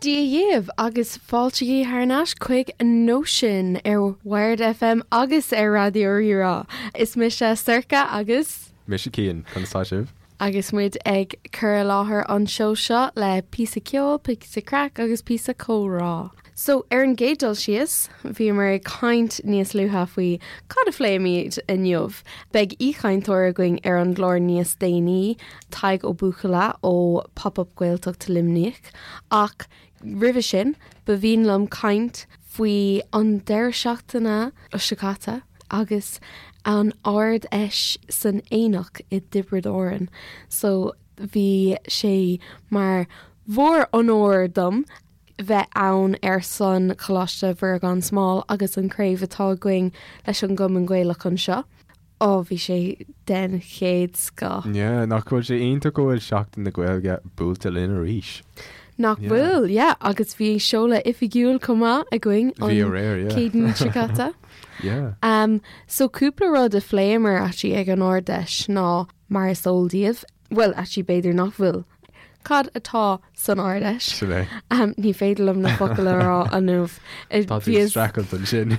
Dia dhaoibh agus fáilte thar n-ais chuig Nóisean ar Wired FM agus ar Raidió Rí-Rá. Is mise Sorcha agus. Mise Cian, conas tá sibh? Agus muid ag cur i láthair an seó seo le píosa ceoil, píosa craic agus píosa comhrá. So, ar an gcéad dul síos, bhíomar ag caint níos luaithe faoi cad a phléimid inniu. Beidh aoichainteoir againn ar an gclár níos déanaí, Tadhg Ó Buachalla ó Pop Up Gaeltacht Luimnigh, ach roimhe sin, ba mhian liom caint faoi an deireadh seachtaine seo caite agus an Ard-Fheis san Aonach i dTiobraid Árann. So, bhí sé mar mhór-onóir dom bheith ann ar son Choláiste Mhuire Gan Smál agus an craobh atá againn leis an gCumann Gaelach anseo. Ó, bhí sé den chéad scoth. Yeah, nach bhfuil sé iontach go bhfuil Seachtain na Gaeilge buailte linn arís? Nach bhfuil, yeah, agus bhí seoladh oifigiúil chomh maith againn an Bhí aréir, yeah. Céadaoin seo caite. Yeah. Um, so cúpla rud a phléamar actually ag an Ard-Fheis ná mar is eol daoibh, Bhuel, actually b'fhéidir nach bhfuil. Cad atá san Ard-Fheis? Sin é. Ní féidir liom na focail a rá inniu. Tá tú ag streachailt ansin.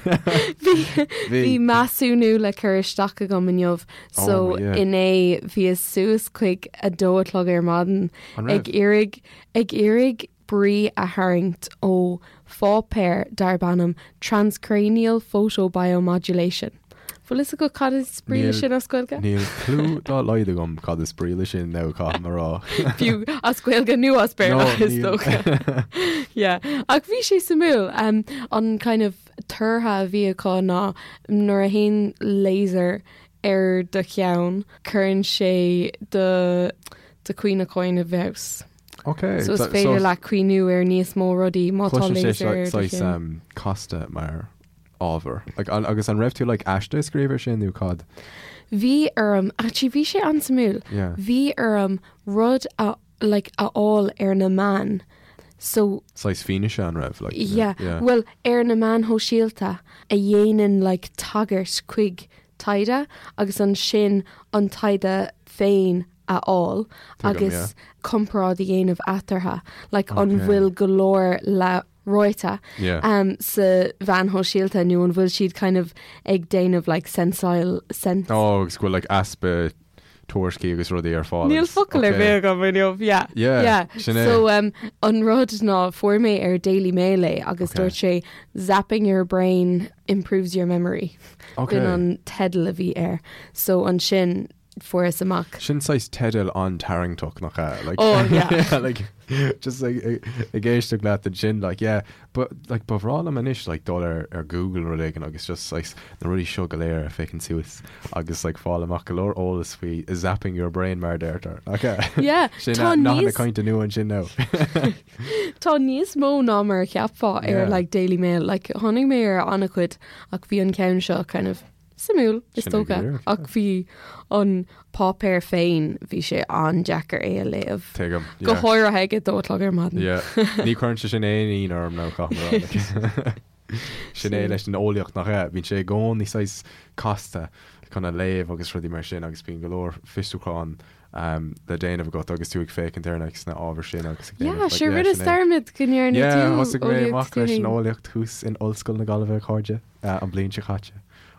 Bhí measúnú le cur isteach agam inniu so inné bhíos suas chuig a dó a chlog ar maidin ag iarraidh ag iarraidh brí a tharraingt ó pháipéar darb ainm Transcranial Photobiomodulation. Bhfuil fhios agat cad is brí le sin as Gaeilge? Níl clue dá laghad agam cad is brí le sin nó caithfidh mé a rá. Fiú as Gaeilge nó as Béarla is dócha. Yeah. Ach bhí sé suimiúil. Um, an kind of toradh a bhí acu ná nuair a théann laser ar do cheann, cuireann sé do do chuimhneachán i bhfeabhas. Ok. So is féidir leat cuimhniú ar níos mó rudaí má tá Cloiseann sé laser ar do saghas cheann. um, casta mar ábhar. Like, an, agus an raibh tú like, aiste a scríobh ar sin nó cad? Bhí orm, actually bhí sé an-suimiúil, Yeah. bhí orm rud a, like, a fháil ar na meáin. So, Saghas fianaise an raibh? Like, yeah, yeah. well, ar na meáin shóisialta a dhéanann like, tagairt chuig taighde agus ansin an taighde féin a fháil agus comparáid a dhéanamh eatarthu, like an bhfuil go leor le ráite um, sa mheáin shóisialta nó an bhfuil siad kind of ag déanamh like sensail sense. Oh, agus go bhfuil like easpa tuairiscí agus rudaí ar fáil. Níl focal ar bith agam inniu, yeah. Yeah, yeah. sin é. So um, an rud ná fuair mé ar Daily Mail é agus Okay. dúirt sé zapping your brain improves your memory. Okay. B'in an teideal a bhí air. So ansin fuaireas amach. Sin saghas teideal an-tarraingteach nach ea? Like, Oh, yeah. like, just like, ag éisteacht leat ansin, like, yeah, but, like, ba bhreá liom anois, like, dul ar, ar Google nó rud éigin agus just saghas na rudaí seo go léir a phiocadh suas agus, like, fáil amach go leor eolas faoi zapping your brain mar a deirtear. Nach ea? Yeah, Sin tá nathanna níos- cainte nua ansin now. Tá níos mó ná mar a cheapfá ar Yeah. like Daily Mail, like tháinig mé ar an-chuid ach bhí an ceann seo kind of Suimiúil, is Sin é go dócha, díreach, ach bhí an páipéar féin, bhí sé an-deacair é a léamh. Tuigim, Go yeah. háirithe ag a dó a chlog ar maidin. Yeah. Ní chuireann sé sin aon ionadh orm nó caithfidh mé a rá. Sin é leis an eolaíocht nach ea? Bíonn sé i gcónaí saghas casta chun a léamh agus rudaí mar sin agus bíonn go leor fiosrúchán um, le déanamh agat agus tú ag féachaint ar like, sna ábhair sin agus ag Yeah, déanamh, like, sure, yeah, rinne sin é. dearmad go ndearna Yeah, tú thosaigh mé eolaíocht amach tú leis an féin. eolaíocht thuas in Ollscoil na Gaillimhe, a chairde. an bhliain seo caite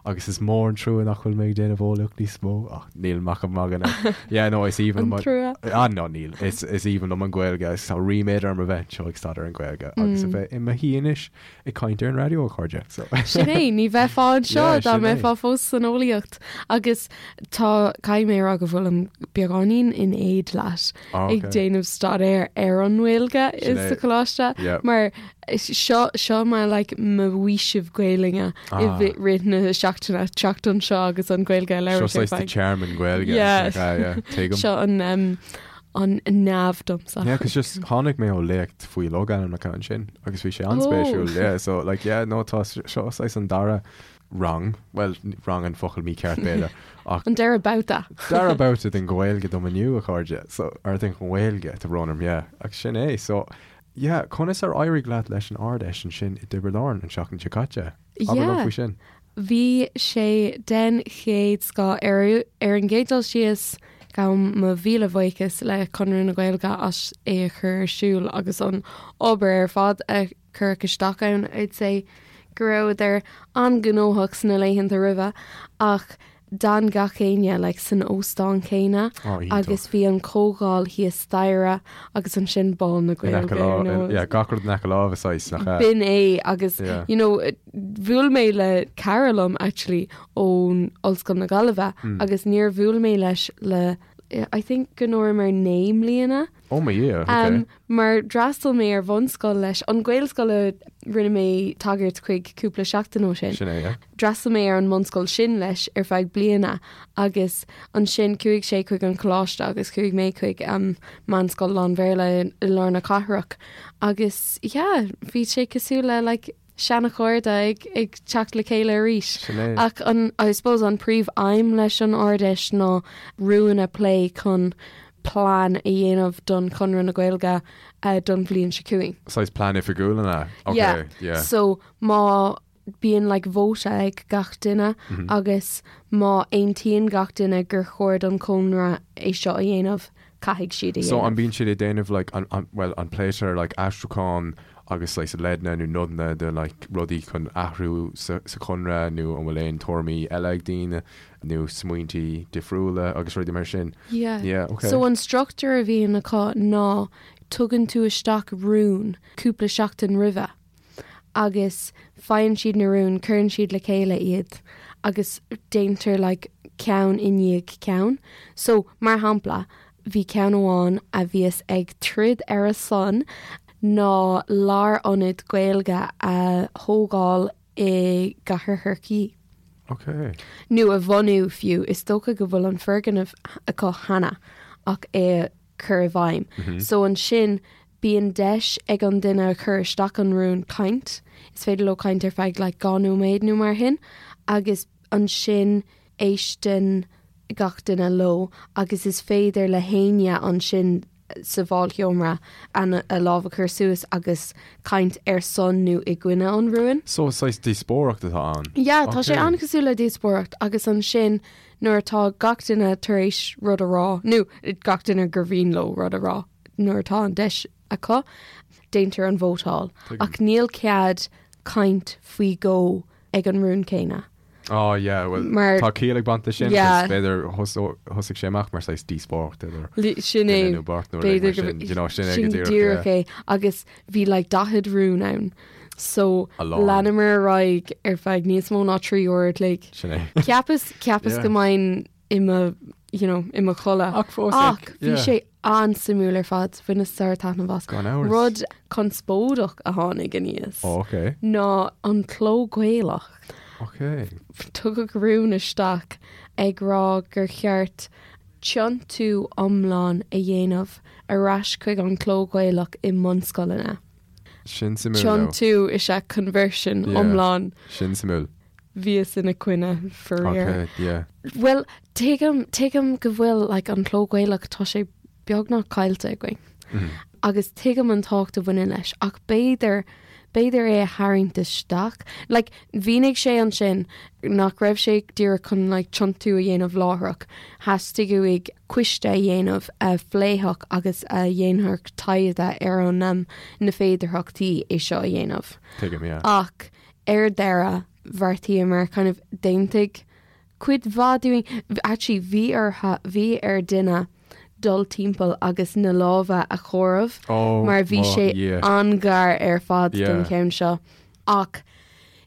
agus is mór an trua nach bhfuil mé ag déanamh eolaíocht níos mó ach níl ach ag magadh now. Yeah, no, is aoibhinn liom An trua. Ah, no, níl. Is, is aoibhinn liom an Ghaeilge agus tá ríméad orm a bheith anseo ag staidéar an Ghaeilge agus a bheith i mo shuí anois ag caint ar an raidió, a chairde. So. Sin é, ní bheifeá anseo Yeah, dá sin é. mbeifeá fós san eolaíocht. Agus tá, caithfidh mé a rá go bhfuilim beagáinín in éad leat Ah, ag okay. déanamh staidéar ar an nGaeilge Sin sa é. choláiste Yeah. mar Seo, seo mar like mo fhaoiseamh Gaelainne i Ah. rith na seachtaine, teacht anseo agus an Ghaeilge a Seo labhairt ar saghas do feadh. tearmann Gaeilge. Yeah. Like, ah, yeah, tuigim. Seo an, um, an neamh domsa. Yeah, 'cause just tháinig mé ó léacht faoi logainmneacha ansin agus bhí sé an-spéisiúil. Oh. Yeah, so like, yeah, no, tá seo saghas an dara rang, well, rang an focal mícheart b'fhéidir, ach An dara babhta. dara babhta den Ghaeilge dom inniu, a chairde, so, or den Ghaeilge, tá brón orm, yeah, ach sin é, so, Yeah, conas ar éirigh leat leis an Ard-Fheis ansin i dTiobraid Árann an tseachtain seo caite? Abair liom Yeah. faoi sin. Bhí sé den chéad scoth. Ar ar an gcéad dul síos, Gabhaim mo mhíle bhuíochas le Conradh na Gaeilge as é a chur ar siúl agus an obair ar fad a cuireadh isteach ann. I'd say go rabhadar an-ghnóthach sna laethanta roimhe ach d'fhan gach éinne like san óstán céanna Oh, iontach. agus bhí an comhdháil thíos staighre agus ansin Bál na In aice Gaeilge ar láimhe, nós. yeah, gach rud in aice láimhe saghas, nach ea? B'in é agus Yeah. you know bhuail mé le cara liom actually ón Ollscoil na Gaillimhe agus níor bhuail mé leis le I think go ndúramar 9 mbliana. Oh my Dhia, ok. Um, mar d'fhreastail mé ar bhunscoil leis, an Ghaelscoil a rinne mé tagairt chuig cúpla seachtain ó sin. Sin é, yeah. D'fhreastail mé ar an mbunscoil sin leis ar feadh bliana agus ansin chuaigh sé chuig an choláiste agus chuaigh mé chuig um, meánscoil lán-Bhéarla i, i lár na cathrach agus yeah, bhí sé cosúil le like, seanachairde ag, ag teacht le chéile arís. Sin é. Ach an, I suppose an príomh-aidhm leis an Ard-Fheis ná rúin a plé chun plean a dhéanamh don Chonradh na Gaeilge uh, don bhliain seo chugainn. Saghas plean oifigiúil an ea? Ok, Yeah. yeah. So má bíonn like vóta ag gach duine mm -hmm. agus má aontaíonn gach duine gur chóir don Chonradh é seo a dhéanamh, caithfidh siad a So dhéanamh. an bíonn siad ag déanamh like an, an, well an pléitear like aistriúchán agus like leideanna nó nodanna de like rudaí chun athrú sa, sa chonradh nó an bhfuil aon tuairimí eile ag daoine nó smaointí difriúla agus rudaí mar sin? Yeah. Yeah, okay. So an struchtúr a bhíonn acu ná tugann tú isteach rún cúpla seachtain roimhe agus faigheann siad na rúin, cuireann siad le chéile iad agus déantar like ceann i ndiaidh ceann. So mar shampla, bhí ceann amháin a bhíos ag troid ar a son ná lárionad Gaeilge a thógáil i gCathair Chorcaí. Ok. Nó a bhunú fiú, is dócha go bhfuil an foirgneamh acu cheana ach é a chur i bhfeidhm. So ansin bíonn deis ag an duine a chuir isteach an rún caint, is féidir leo caint ar feadh like 2 nóiméad nó mar shin, agus ansin éisteann gach duine leo agus is féidir le héinne ansin sa bhálsheomra a lámh a chur suas agus caint ar son nó i gcoinne an rúin. So saghas díospóireacht atá ann? Yeah, tá sé Ok. an-chosúil le díospóireacht agus ansin nuair atá gach duine tar éis rud a rá, nó gach duine gur mhian leo rud a rá nuair atá an deis acu, déantar an vótáil. Tuigim. Ach níl cead caint faoi dhó ag an rún céanna. Oh yeah, well Mar- tá ciall ag baint leis sin, Yeah. 'cause b'fhéidir thosaigh sé amach mar saghas díospóireacht idir Sin é. duine nó beirt nó rud mar B'fhéidir go sin, you know, sin é go sin díreach, díreach yeah. é. Agus bhí like 40 rún ann. So A lán. leanamar ar aghaidh ar feadh níos mó ná 3 uair a chloig. Sin é. Cheapas cheapas Yeah. go mbeinn i mo you know, i mo chodladh. Ach fós, Ach like, bhí yeah. sé an-suimiúil ar fad, bhaineas sár-taitneamh as. Gan amhras. Rud conspóideach a tháinig aníos Oh, okay. ná an cló Gaelach. Okay. Tugadh rún isteach ag rá gur cheart tiontú iomlán a dhéanamh ar ais chuig an cló Gaelach i mbunscoileanna. Sin suimiúil though. Tiontú is ea conversion Yeah. iomlán. Sin suimiúil. Bhíos ina coinne faraor. Okay, yeah. Bhuel, tuigim, tuigim go bhfuil like, an cló Gaelach, tá sé beagnach caillte againn. Mm. Agus tuigim an tábhacht a bhaineann leis, ach b'fhéidir, b'fhéidir é a tharraingt isteach. Like, mhínigh sé ansin nach raibh sé díreach chun like, tiontú a dhéanamh láithreach. Theastaigh uaidh coiste a dhéanamh a phléifeadh agus a dhéanfadh taighde ar an um, na féidearthachtaí é seo a dhéanamh. Tuigim, yeah. Ach ar deireadh, bheartaíomar kind of d'aontaigh cuid mhaith dúinn, actually bhí orthu, bhí ar duine dul timpeall agus na lámha a chomhaireamh Oh, mar bhí mo sé Dhia. an-ghar ar fad don Yeah. cheann seo. Ach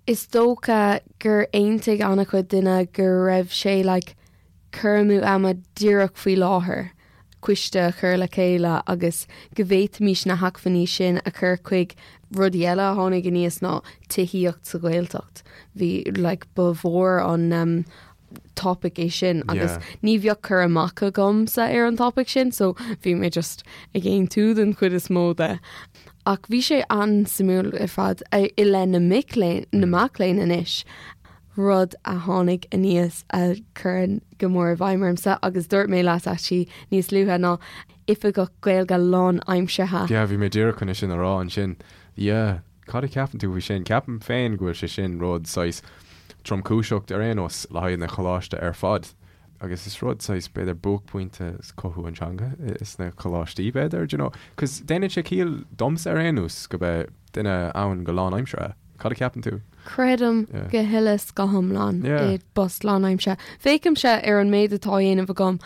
is dócha gur aontaigh an-chuid duine go raibh sé like cur amú ama díreach faoi láthair, coiste a chur le chéile agus go bhféadfaimis na hacmhainní sin a chur chuig rudaí eile a tháinig aníos ná tithíocht sa Ghaeltacht. Bhí like ba mhór an um, topic é sin agus Yeah. ní bheadh cur amach agamsa ar an topic sin, so bhí mé just ag aontú den chuid is mó de. Ach bhí sé an-suimiúil ar fad i leith na mic léinn, na mac léinn anois. rud a tháinig aníos a chuireann go mór i bhfeidhm ormsa agus dúirt mé leat actually níos luaithe ná oifigeach Gaeilge lánaimseartha. Yeah, bhí mé díreach chun é sin a rá ansin. Yeah, cad a cheapann tú faoi sin? Ceapaim féin go bhfuil sé sin rud saghas tromchúiseach ar aon nós le haghaidh na choláiste ar fad. Agus is rud saghas, b'fhéidir, buaicphointe cothú an teanga sna coláistí, b'fhéidir, do you know. 'Cause déanann sé ciall domsa ar aon nós go mbeadh duine ann go lánaimseartha. Cad a cheapann tú? Creidim go huile 's go hiomlán i bpost lánaimseartha. Féachaimse ar an méid atá á dhéanamh agam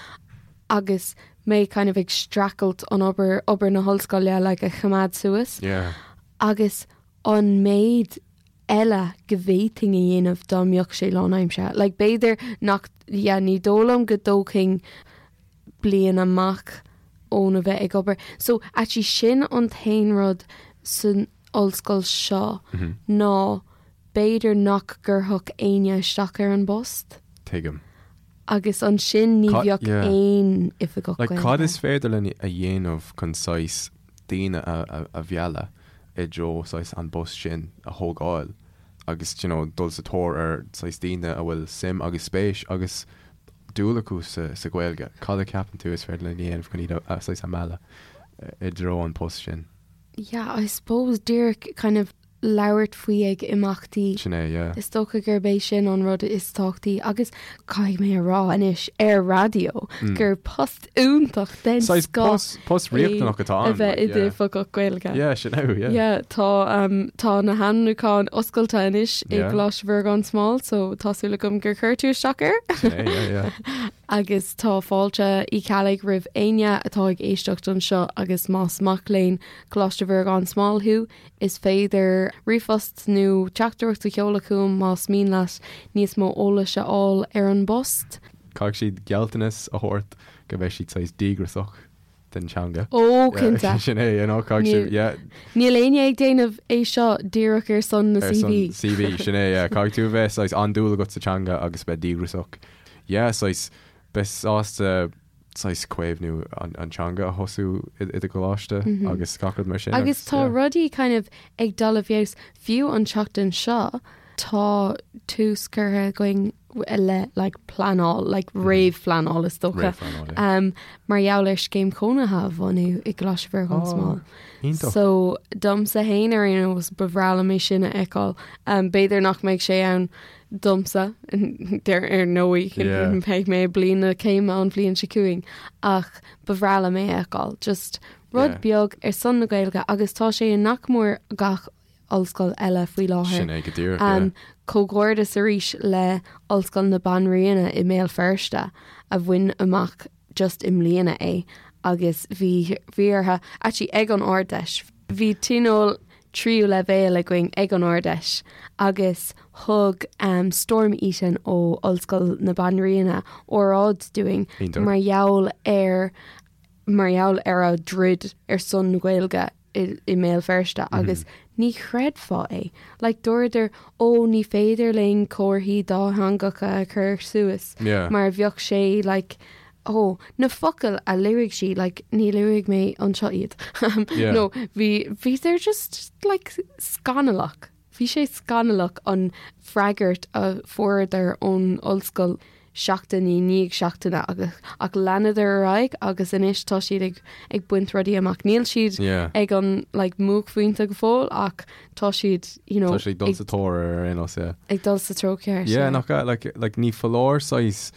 agus mé kind of ag streachailt an obair, obair na hollscoile like a choimeád suas agus an méid eile go bhféadfainn a dhéanamh dá mbeadh sé lánaimseartha. Like b'fhéidir nach, yeah, ní dóigh liom go dtógfainn bliain amach óna bheith ag obair. So actually sin an t-aon rud san ollscoil seo ná b'fhéidir nach gcuirfeadh éinne isteach ar an bpost. Tuigim. Agus ansin ní bheadh aon oifigeach Like cad is féidir linn a dhéanamh chun saghas daoine a mhealladh i dtreo saghas an bpost sin a thógáil agus you know dul sa tóir ar saghas daoine a bhfuil suim agus spéis agus dúil acu sa Ghaeilge. Cad a cheapann tú is féidir linn a dhéanamh chun iad a saghas a mhealladh i dtreo an post sin? Yeah, I suppose díreach kind of labhairt faoi ag imeachtaí. Sin é, yeah. Is dócha gurb é sin an rud is tábhachtaí agus caithfidh mé a rá anois ar raidió gur post iontach den scoth post, post riachtanach atá ann. A bheith i d'oifigeach Gaeilge. Yeah, sin é, yeah. Yeah, tá, um, tá na hainmniúcháin oscailte anois i gColáiste Mhuire gan Smál, so tá súil agam gur chuir tú isteach air. Sin é, yeah, yeah. Agus tá fáilte Uí Cheallaigh roimh éinne atá ag éisteacht anseo agus más mac léinn Coláiste Mhuire gan Smál thú, is féidir ríomhphost nó teachtaireacht a sheoladh chugam más mian leat níos mó eolais a fháil ar an bpost. Caithfidh siad gealltanas a thabhairt go mbeidh siad saghas díograiseach den teanga. Ó, cinnte. Sin é, you know, caithfidh siad, yeah. Níl éinne ag déanamh é seo díreach ar son na CV. Ar son CV, sin é, yeah. Caithfidh tú a bheith saghas an-dúil agat sa teanga agus bheith díograiseach. Yeah, saghas, bheith sásta saghas caomhnú an teanga a thosú i do choláiste agus gach rud mar sin. Agus tá rudaí kind of ag dul i bhfeabhas, fiú an tseachtain seo, tá tús curtha againn le like pleanáil, like réamhphleanáil is dócha, um, mar gheall ar scéim chónaithe a bhunú i gColáiste Mhuire gan Smál. Iontach. So domsa féin ar aon nós ba bhreá liom é sin a fheiceáil. Um, b'fhéidir nach mbeidh sé ann domsa ar ar ndóigh Yeah. beidh mé i bliain na céime an bhliain seo chugainn ach ba bhreá liom é a fheiceáil. Just rud Yeah. beag ar son na Gaeilge agus tá sé i nach mór gach ollscoil eile faoi láthair. Sin é go díreach, yeah. Comhghairdeas arís le Ollscoil na Banríona i mBéal Feirste a bhain amach just i mbliana é agus bhí bhí orthu, actually ag an Ard-Fheis, bhí tionól tríú leibhéal againn ag an Ard-Fheis agus thug Storm Eaton ó Ollscoil na Banríona óráid dúinn mar gheall ar mar gheall ar a dtroid ar son na Gaeilge i mBéal Feirste agus ní chreidfeá é. Like dúradar ó ní féidir linn comharthaí dátheangacha a chur suas mar bheadh sé like ó na focail a luaigh sí like ní luafaidh mé anseo iad. No bhí bhí they're just like scannalach. Bhí sé scannalach an freagairt a fuaireadar ón ollscoil seachtain i ndiaidh seachtaine agus ach leanadar ar aghaidh agus anois tá siad ag ag baint rudaí amach. Níl siad Yeah. ag an like mbuaicphointe go fóill ach tá siad you know Tá siad ag dul sa tóir ar aon nós, yeah. ag dul sa treo ceart. Yeah, nach ea, like, like ní foláir saghas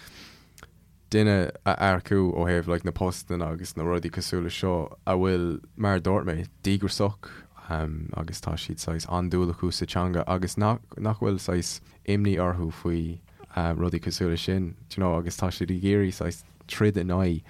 duine a earcú ó thaobh like na postanna agus na rudaí cosúil le seo a bhfuil, mar a dúirt mé, díograiseach agus tá siad saghas an-dúil acu sa teanga agus nach nach bhfuil saghas imní orthu faoi rudaí cosúil le sin, do you know, agus tá siad ag iarraidh saghas troid in aghaidh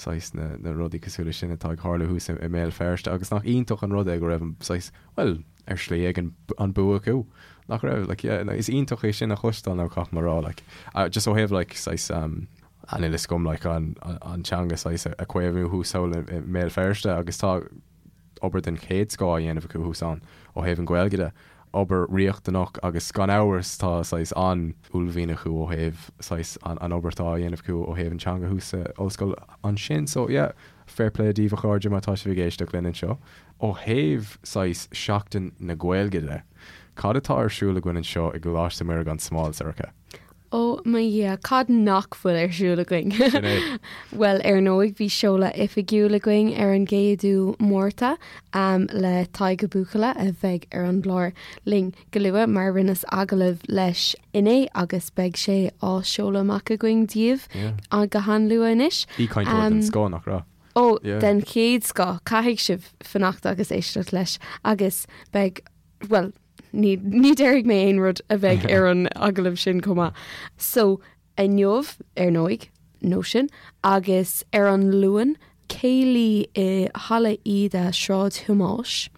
saghas na na rudaí cosúil le sin atá ag tarlú thuas i mBéal Feirste agus nach iontach an rud é go raibh an saghas, bhuel, ar shlí éigin an bua acu. Nach raibh? Like, yeah, is iontach é sin a chloisteáil nó caithfidh mé a rá, like, just ó thaobh like saghas um, an fhios agam like an, an teanga saghas a chaomhnú thuas thall i mBéal Feirste agus tá obair den chéad scoth á dhéanamh acu thuas ann ó thaobh an Ghaeilge de. Obair riachtanach agus gan amhras tá saghas an-uaillmhian acu ó thaobh saghas an, an obair atá á dhéanamh acu ó thaobh an teanga thuas sa ollscoil ansin. So yeah, fair play daoibh a chairde má tá sibh ag éisteacht linn anseo. Ó thaobh saghas Seachtain na Gaeilge de, cad atá ar siúl againn anseo i gColáiste Mhuire gan Smál, Sorcha? Ó mo Dhia, cad nach bhfuil ar siúl againn? Sin é. Bhuel, ar ndóigh, bhí seoladh oifigiúil againn ar an gcéadú Márta le Tadhg Ó Buachalla a bheidh ar an gclár linn go luath mar rinneas agallamh leis inné agus beidh sé á seoladh amach againn daoibh go han-luath anois. Aoichainteoir den scoth, nach raibh? Ó, den chéad scoth, caithfidh sibh fanacht agus éisteacht leis agus beidh, bhuel, Ní ní déarfaidh mé aon rud a bheidh ar an agallamh sin chomh maith. So, inniu, ar ndóigh, Nóisean, agus ar an Luan, céilí i Halla Íde, Sráid Thomáis.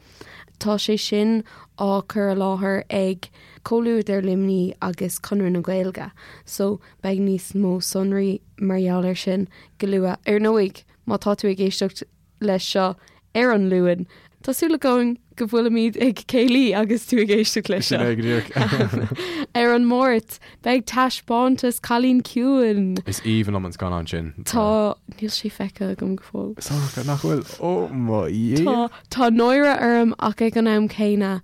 Tá sé sin á cur i láthair ag Comhluadar Luimnigh agus Conradh na Gaeilge. So, beidh níos mó sonraí mar gheall air sin go luath. Ar ndóigh, má tá tú ag éisteacht leis seo ar an Luan. Tá súil againn go bhfuilimid ag céilí agus tú ag éisteacht leis seo. Sin é go díreach. Ar an Máirt, beidh taispeántas Cailín Ciúin. Is aoibhinn liom an scannán sin. Tá, níl sé feicthe agam go fóill. Sorcha, nach bhfuil? Ó mo Dhia! Tá, tá náire orm ach ag an am céanna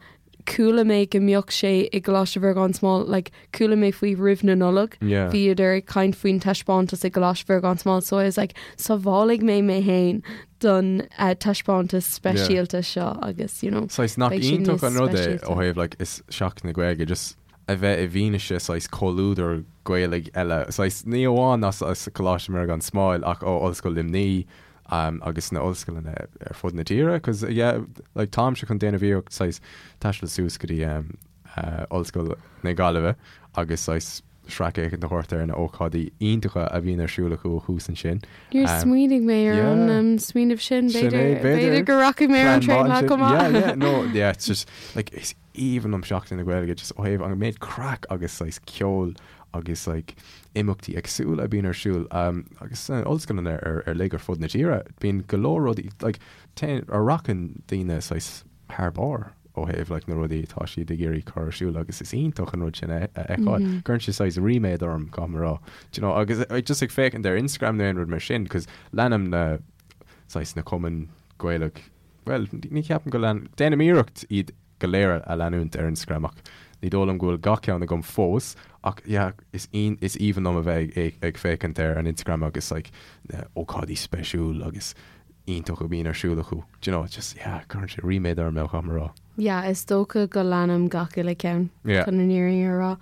chuala mé go mbeadh sé i gColáiste Mhuire gan Smál, like, chuala mé faoi roimh na Nollag, Yeah. bhíodar ag caint faoin taispeántas i gColáiste Mhuire gan Smál, so I was like, sábhálfaidh mé mé féin don uh, taispeántas speisialta seo agus, you know, Saghas nach beidh sé iontach níos an rud é speisialta. ó thaobh like, is Seachtain na Gaeilge just a bheith i bhfianaise saghas comhluadar Gaelaigh eile, saghas ní amháin as as Coláiste Mhuire gan Smál ach ó Ollscoil Luimnigh agus sna ollscoileanna ar fud na tíre cos yeah like táimse chun déanamh iarracht saghas taisteal suas go dtí Ollscoil na Gaillimhe agus saghas sracfhéachaint a thabhairt ar na ócáidí iontacha a bhíonn ar siúl acu thuas ansin. Níor smaoinigh mé ar an smaoineamh sin, b'fhéidir b'fhéidir go rachaidh mé ar an traein lá chomh maith. Yeah, yeah, no, yeah, it's just like is aoibhinn liom Seachtain na Gaeilge just ó thaobh an méid craic agus saghas ceoil agus like imeachtaí éagsúla a bhíonn ar siúl agus sna ollscoileanna ar ar uilig ar fud na tíre bíonn go leor rudaí like téann a rachann daoine saghas thar barr ó thaobh like na rudaí atá siad ag iarraidh cur ar siúl agus is iontach an rud sin a a fheiceáil. Cuireann sé saghas ríméad orm caithfidh mé a rá. Do you know agus just ag féachaint ar Instagram nó aon rud mar sin cos leanaim na saghas na cumainn Gaelach bhuel ní cheapaim go lean déanaim iarracht iad go léir a leanúint ar Instagram ach ní dóigh liom go bhfuil gach ceann agam fós ach yeah is is aoibhinn liom a bheith ag ag féachaint ar an Instagram agus like na ócáidí speisiúil agus iontach a bhíonn ar siúl acu do you know just yeah cuireann sé ríméad orm caithfidh mé a rá. Yeah is dócha go leanaim gach uile ceann Yeah. chun an fhírinne a rá.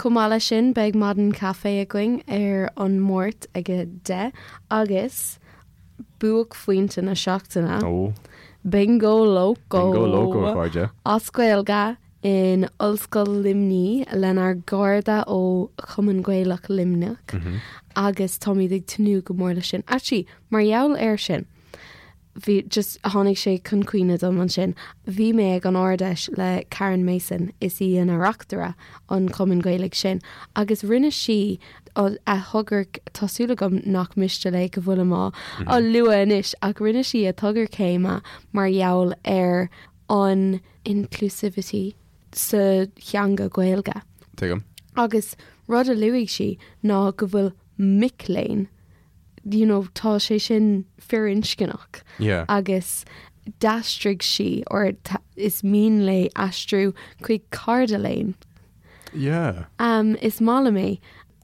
Chomh maith leis sin beidh maidin caife againn ar an Máirt ag a 10 agus buaicphointe na seachtaine. Ó. Bingo Loco. Bingo Loco, a chairde. As Gaeilge in Ollscoil Luimnigh lenár gcairde ó Chumann Gaelach Luimneach agus táimid ag tnúth go mór leis sin. Actually, mar gheall air sin, bhí just tháinig sé chun cuimhne dom ansin, bhí mé ag an Ard-Fheis le Karen Mason, is í ina reachtaire an Chumainn Ghaelaigh sin, agus rinne sí a togra, tá súil agam nach miste léi go bhfuilim á á lua anois, ach rinne sí a togra céime mar gheall ar an inclusivity sa theanga Ghaeilge. Tuigim. Agus rud a luaigh sí ná go bhfuil mic léinn, you know, tá sé sin firinscneach. Yeah. Agus d'aistrigh sí, or is mian léi aistriú chuig cairde léinn. Yeah. Um, is maith liom é.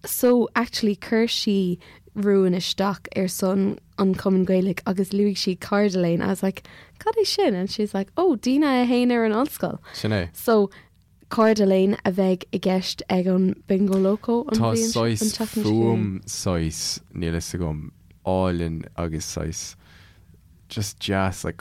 So, actually, chuir sí rún isteach ar son an Chumainn Ghaelaigh agus luaigh sí cairde léinn. I was like, cad é sin? And she's like, oh, daoine a théann ar an ollscoil. Sin é. So, cairde léinn a bheidh i gceist ag an Bingo Loco an Tá bhliain an saghas tseachtain seo chugainn. fuaim saghas, níl fhios agam, álainn agus saghas just deas like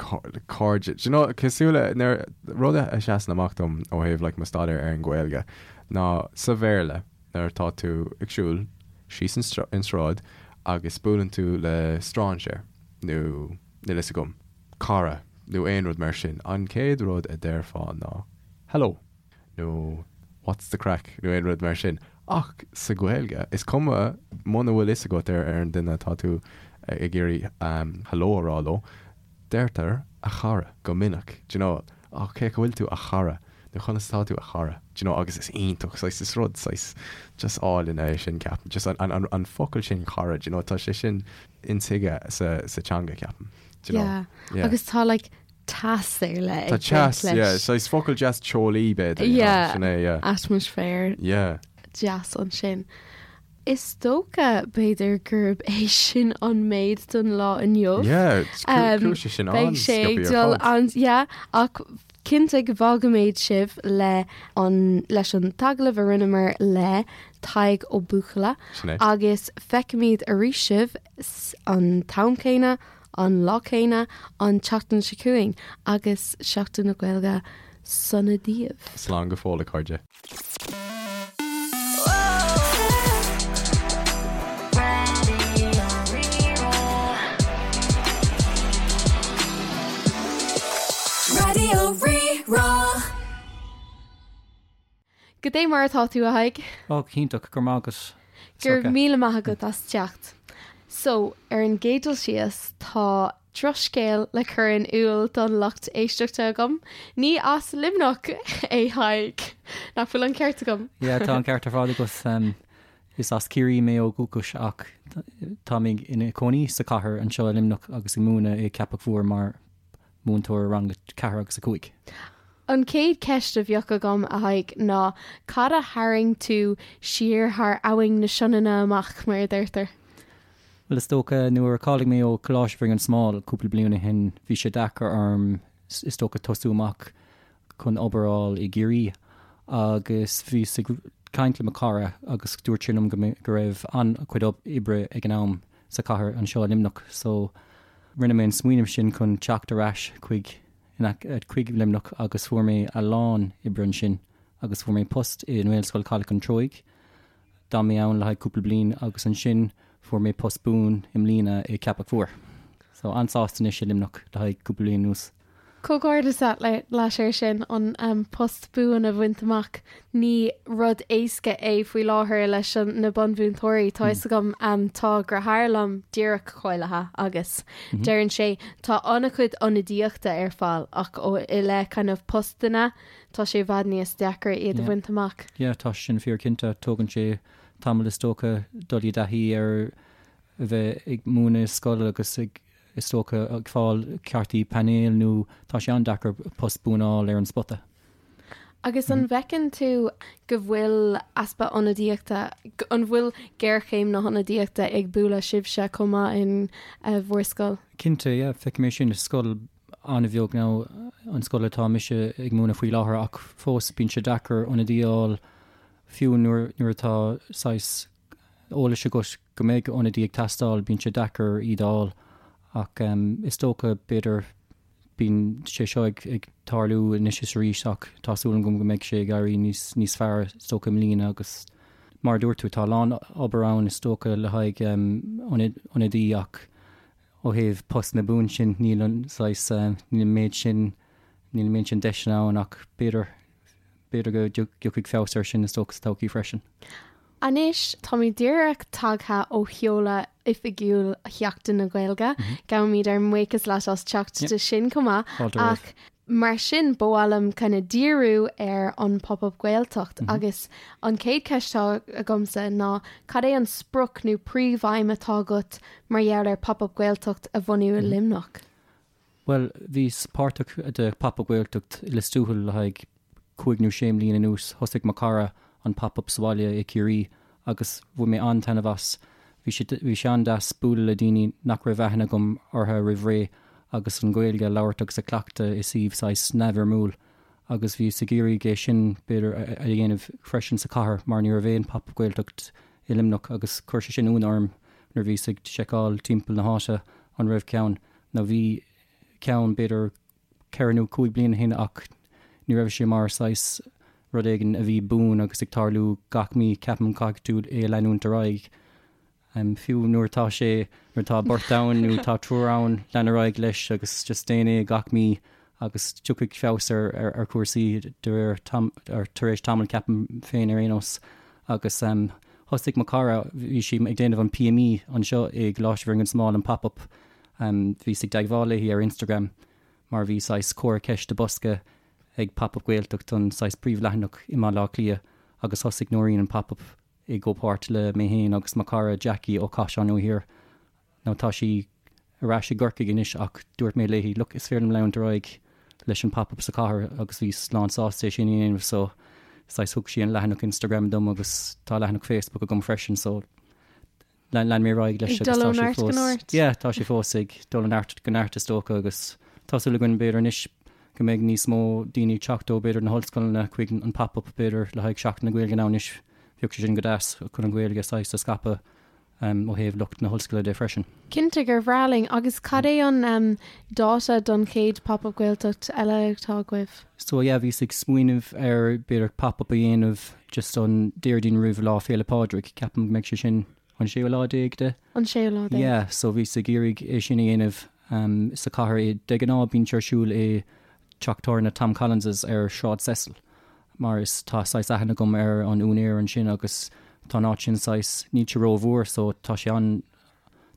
cairde, do you know, cosúil le nuair, rud a sheasann amach dom ó thaobh like mo staidéar ar an Ghaeilge ná sa Bhéarla nuair atá tú ag siúl síos an sráid agus buaileann tú le strainséir nó níl fhios agam, cara nó aon rud mar sin, an chéad rud a déarfá ná hello. nó what's the craic nó aon rud mar sin. Ach sa Ghaeilge, is cuma muna bhfuil fhios agat ar an duine atá tú ag iarraidh hello a rá leo, deirtear a chara go minic, do you know, oh cén chaoi a bhfuil tú a chara nó conas atá tú a chara, do you know, agus is iontach, saghas, is rud saghas just álainn é sin ceapaim, just an, an, an focal sin cara, do you know, tá sé sin intuigthe sa, sa teanga ceapaim, do you know. Yeah. Yeah. Agus tá like teas ar leith Tá ag baint teas, leis. yeah, saghas focal deas teolaí b'fhéidir, you know, Yeah, sin é, yeah. atmaisféar Yeah. deas ansin. Is dócha, b'fhéidir, gurb é sin an méid don lá inniu. Yeah, chuaigh sé sin Beidh sé ag dul an, yeah, ach cinnte go bhfágfaimid sibh le an, leis an t-agallamh a rinneamar le Tadhg Ó Buachalla. Sin é. Agus feicfimid arís sibh an t-am céanna, an lá céanna, an tseachtain seo chugainn agus Seachtain na Gaeilge sona daoibh. Slán go fóill, a chairde. Raidió Rí-Rá. Goidé mar atá tú, a Thaidhg? Ó, go hiontach, go raibh maith agat. Go raibh míle maith agat as teacht. So, ar an gcéad dul síos, tá drochscéal le cur in iúl don lucht éisteachta agam. Ní as Luimneach é Tadhg. Nach bhfuil an ceart agam? Yeah, tá an ceart ar fad agat. Is as Ciarraí mé ó dhúchas ach tá mé ina cónaí sa chathair anseo i Luimneach agus ag múineadh i Ceapach Mhór mar múinteoir rang 4 agus 5. An chéad cheist a bheadh agam, a Thaidhg, ná cad a tharraing tú siar thar abhainn na Sionainne amach, mar a deirtear? Bhuel, is dócha, nuair a cháiligh mé ó Choláiste Bhinn an Smáil cúpla bliain ó shin, bhí sé deacair orm, is dócha, tosú amach chun obair a fháil i gCiarraí. Agus bhíos ag caint le mo chara agus dúirt sé liom go go raibh an-chuid oibre ag an am sa chathair anseo i Luimneach. So, rinne mé an smaoineamh sin chun teacht ar ais chuig chuig Luimneach agus fuair mé a lán oibre ansin agus fuair mé post i nGaelscoil Chaladh an Treoigh. D'fhan mé ann le haghaidh cúpla bliain agus ansin fuair mé post buan i mbliana i Ceapach Mhór. So an-sásta anois i Luimneach le haghaidh cúpla bliain anuas. Comhghairdeas leat air sin, an post buan a bhaint amach. Ní rud éasca é faoi láthair leis na bunmhúinteoirí. Tá fhios agam, tá deartháir liom díreach cáilithe agus deireann sé tá an-chuid ionadaíochta ar fáil ach ó i leith kind of postanna tá sé i bhfad níos deacra iad a bhaint amach. Yeah, tá sin fíor cinnte. Tógann sé tamall is dócha dul i dtaithí ar a bheith ag múineadh i scoil agus ag, is dócha, ag fáil cártaí painéil nó tá sé an-deacair post buan a fháil ar an spota. Agus an bhfeiceann tú go bhfuil easpa ionadaíochta, an bhfuil géarchéim na hionadaíochta ag bualadh sibhse chomh maith in bhur scoil? Cinnte, yeah, feicim é sin i scoil an-bheag nó an scoil atá mise ag múineadh faoi láthair ach fós bíonn sé deacair ionadaí a fháil fiú nuair nuair atá saghas eolais agat go mbeidh ionadaí ag teastáil bíonn sé deacair iad a fháil ach is dócha b'fhéidir bíonn sé seo ag ag tarlú anois is arís ach tá súil agam go mbeidh sé ag éirí níos níos fearr is dócha i mbliana agus mar a dúirt tú tá a lán obair ann is dócha le haghaidh ionadaí ach Ó thaobh postanna buan sin, níl an saghas, níl an méid sin, níl an méid sin deiseanna ann ach b'fhéidir, b'fhéidir go dtiocfaidh feabhas air sin is dócha sa todhchaí freisin. Anois, táimid díreach tagtha ó sheoladh oifigiúil Sheachtain na Gaeilge. Gabhaimid ár mbuíochas leat as teacht do sin chomh maith. Fáilte romhat. Ach Mar sin, ba mhaith liom kind of díriú ar an Pop Up Gaeltacht agus an chéad cheist atá agamsa ná cad é an sprioc nó príomhaidhm atá agat mar gheall ar Pop Up Gaeltacht a bhunú i Luimneach? Bhuel, bhíos páirteach de Pop Up Gaeltacht i Lios Tuathail le haghaidh cúig nó sé mbliana anuas. Thosaigh mo chara an Pop Up sa bhaile i Ciarraí agus bhain mé an-taitneamh as. Bhí sé bhí sé an-deas bualadh le daoine nach raibh aithne agam orthu roimh ré agus an Ghaeilge a labhairt agus a cleachtadh i suíomh saghas neamhfhoirmiúil agus bhíos ag iarraidh é sin b'fhéidir a dhéanamh freisin sa chathair mar ní raibh aon Pop Up Gaeltacht i Luimneach agus chuir sé sin ionadh orm nuair a bhíos ag seiceáil timpeall na háite an raibh ceann nó bhí ceann b'fhéidir ceithre nó cúig bliana ó shin ach ní raibh sé mar saghas rud éigin a bhí buan agus ag tarlú gach mí, ceapaim caithfidh tú é a leanúint ar aghaidh. Fiú nuair atá sé, nuair atá beirt ann nó tá triúr ann, lean ar aghaidh leis agus just déan é gach mí agus tiocfaidh feabhas ar ar chúrsaí de réir tar éis tamaill ceapaim féin ar aon nós. Agus thosaigh mo chara, bhí sí ag déanamh an PME anseo i gColáiste Bhinn an Smáil, an Pop-Up, Bhíos i dteagmháil léi ar Instagram mar bhí saghas comhartha ceiste bosca ag Pop Up Gaeltacht an saghas príomhleathanach i mBaile Átha Cliath agus thosaigh Nóirín an Pop Up i gcomhpháirt le mé féin agus mo chara Jackie ó Chaiseal Nua Thiar. Now tá sí ar ais i gCorcaigh anois ach dúirt mé léi look is féidir liom leanúint ar aghaidh leis an Pop Up sa chathair agus bhíos lán sásta é sin a dhéanamh so saghas thug sí an leathanach Instagram dom agus tá leathanach Facebook agam freisin so. Lean mé ar aghaidh leis Ag agus dul tá ó sé neart go fós, neart. yeah, tá sé fós ag dul ó neart go neart is dócha agus tá súil againn b'fhéidir anois go mbeidh níos mó daoine ag teacht ó b'fhéidir na hollscoileanna chuig an pop-up b'fhéidir le haghaidh Seachtain na Gaeilge now anois bheadh sé sin go deas chun an Ghaeilge saghas a scaipeadh ó thaobh lucht na hollscoile de freisin. Cinnte gur bhreá linn agus cad é an dáta don chéad Pop-Up Gaeltacht eile atá agaibh? So yeah bhíos ag smaoineamh ar b'fhéidir pop-up a dhéanamh just an Déardaoin roimh Lá Féile Pádraig, ceapaim go mbeidh sé sin an séú lá déag de? An séú lá déag. Yeah, so bhíos ag iarraidh é sin a dhéanamh sa chathair. De ghnáth bíonn sé ar siúl i teach tábhairne Tom Collins's ar Sráid Cecil mar is tá saghas aithne agam ar an úinéir ansin agus tá an áit sin saghas, níl sé rómhór so tá sé an,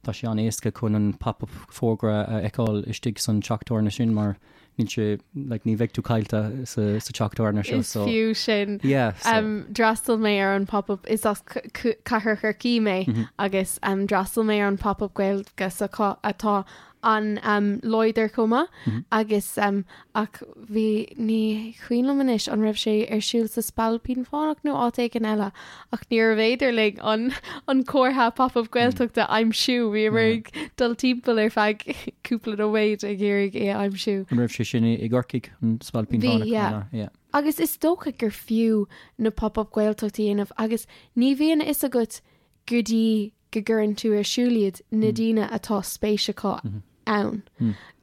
tá sé an-éasca chun an pop-up fógra a fheiceáil istigh san teach tábhairne sin mar níl sé, like, ní bheidh tú caillte sa, sa teach tábhairne seo Is so. fiú sin. Yeah, so. Um, d'fhreastail mé ar an pop-up is as Cathair Chorcaí mé mm -hmm. agus um, d'fhreastail mé ar an pop-up Gaeilge s'acu atá an-láidir chomh maith mm -hmm. agus um, ach bhí ní cuimhin liom anois an raibh sé ar siúl sa Spailpín Fánach nó áit éigin eile ach níorbh fhéidir linn an an comhartha pop-up Gaeltachta a aimsiú bhíomar ag dul timpeall ar feadh cúpla nóiméad ag iarraidh é a aimsiú. An raibh sé sin i gCorcaigh an Spailpín Bhí, Fánach? yeah. Yeah. Agus is dócha gur fiú na pop-up Gaeltacht a dhéanamh agus ní bhíonn a fhios agat go dtí go gcuireann tú ar siúl iad na daoine atá spéis acu ann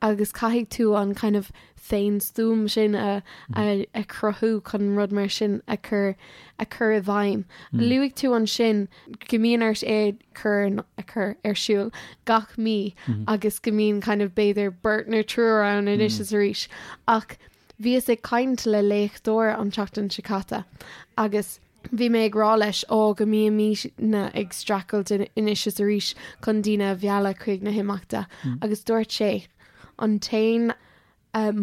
agus caithfidh tú an kind of féinstuaim sin a a a chruthú chun rud mar sin a chur a chur i bhfeidhm. Luaigh tú ansin go mbíonn ort é chur a chur ar siúl gach mí agus go mbíonn kind of b'fhéidir beirt nó triúr ann anois is arís ach bhíos ag caint le léachtóir an tseachtain seo caite agus Bhí mé ag rá leis, ó, go mbímidne ag streachailt anois is arís chun daoine a mhealladh chuig na himeachta agus dúirt sé, an t-aon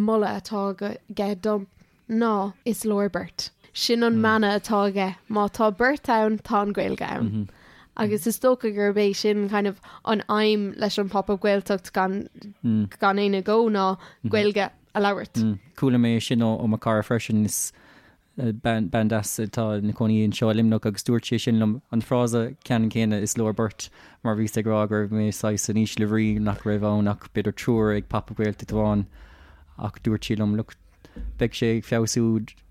moladh atá aige dom ná is leor beirt. Sin an mana atá aige, má tá beirt ann, tá an Ghaeilge ann. Agus is dócha gurb é sin kind of an aidhm leis an Pop-Up Gaeltacht gan gan aon agó ná Gaeilge a labhairt. Chuala mé sin ó mo chara freisin, is Bean deas atá ina cónaí anseo i Luimneach agus dúirt sí sin liom an frása ceannann céanna is leor beirt mar bhíos ag rá go raibh mé saghas in ísle bhrí nach raibh ann ach b'fhéidir triúr ag Pop Up Gaeltacht amháin ach dúirt sí liom look beidh sé ag feabhsú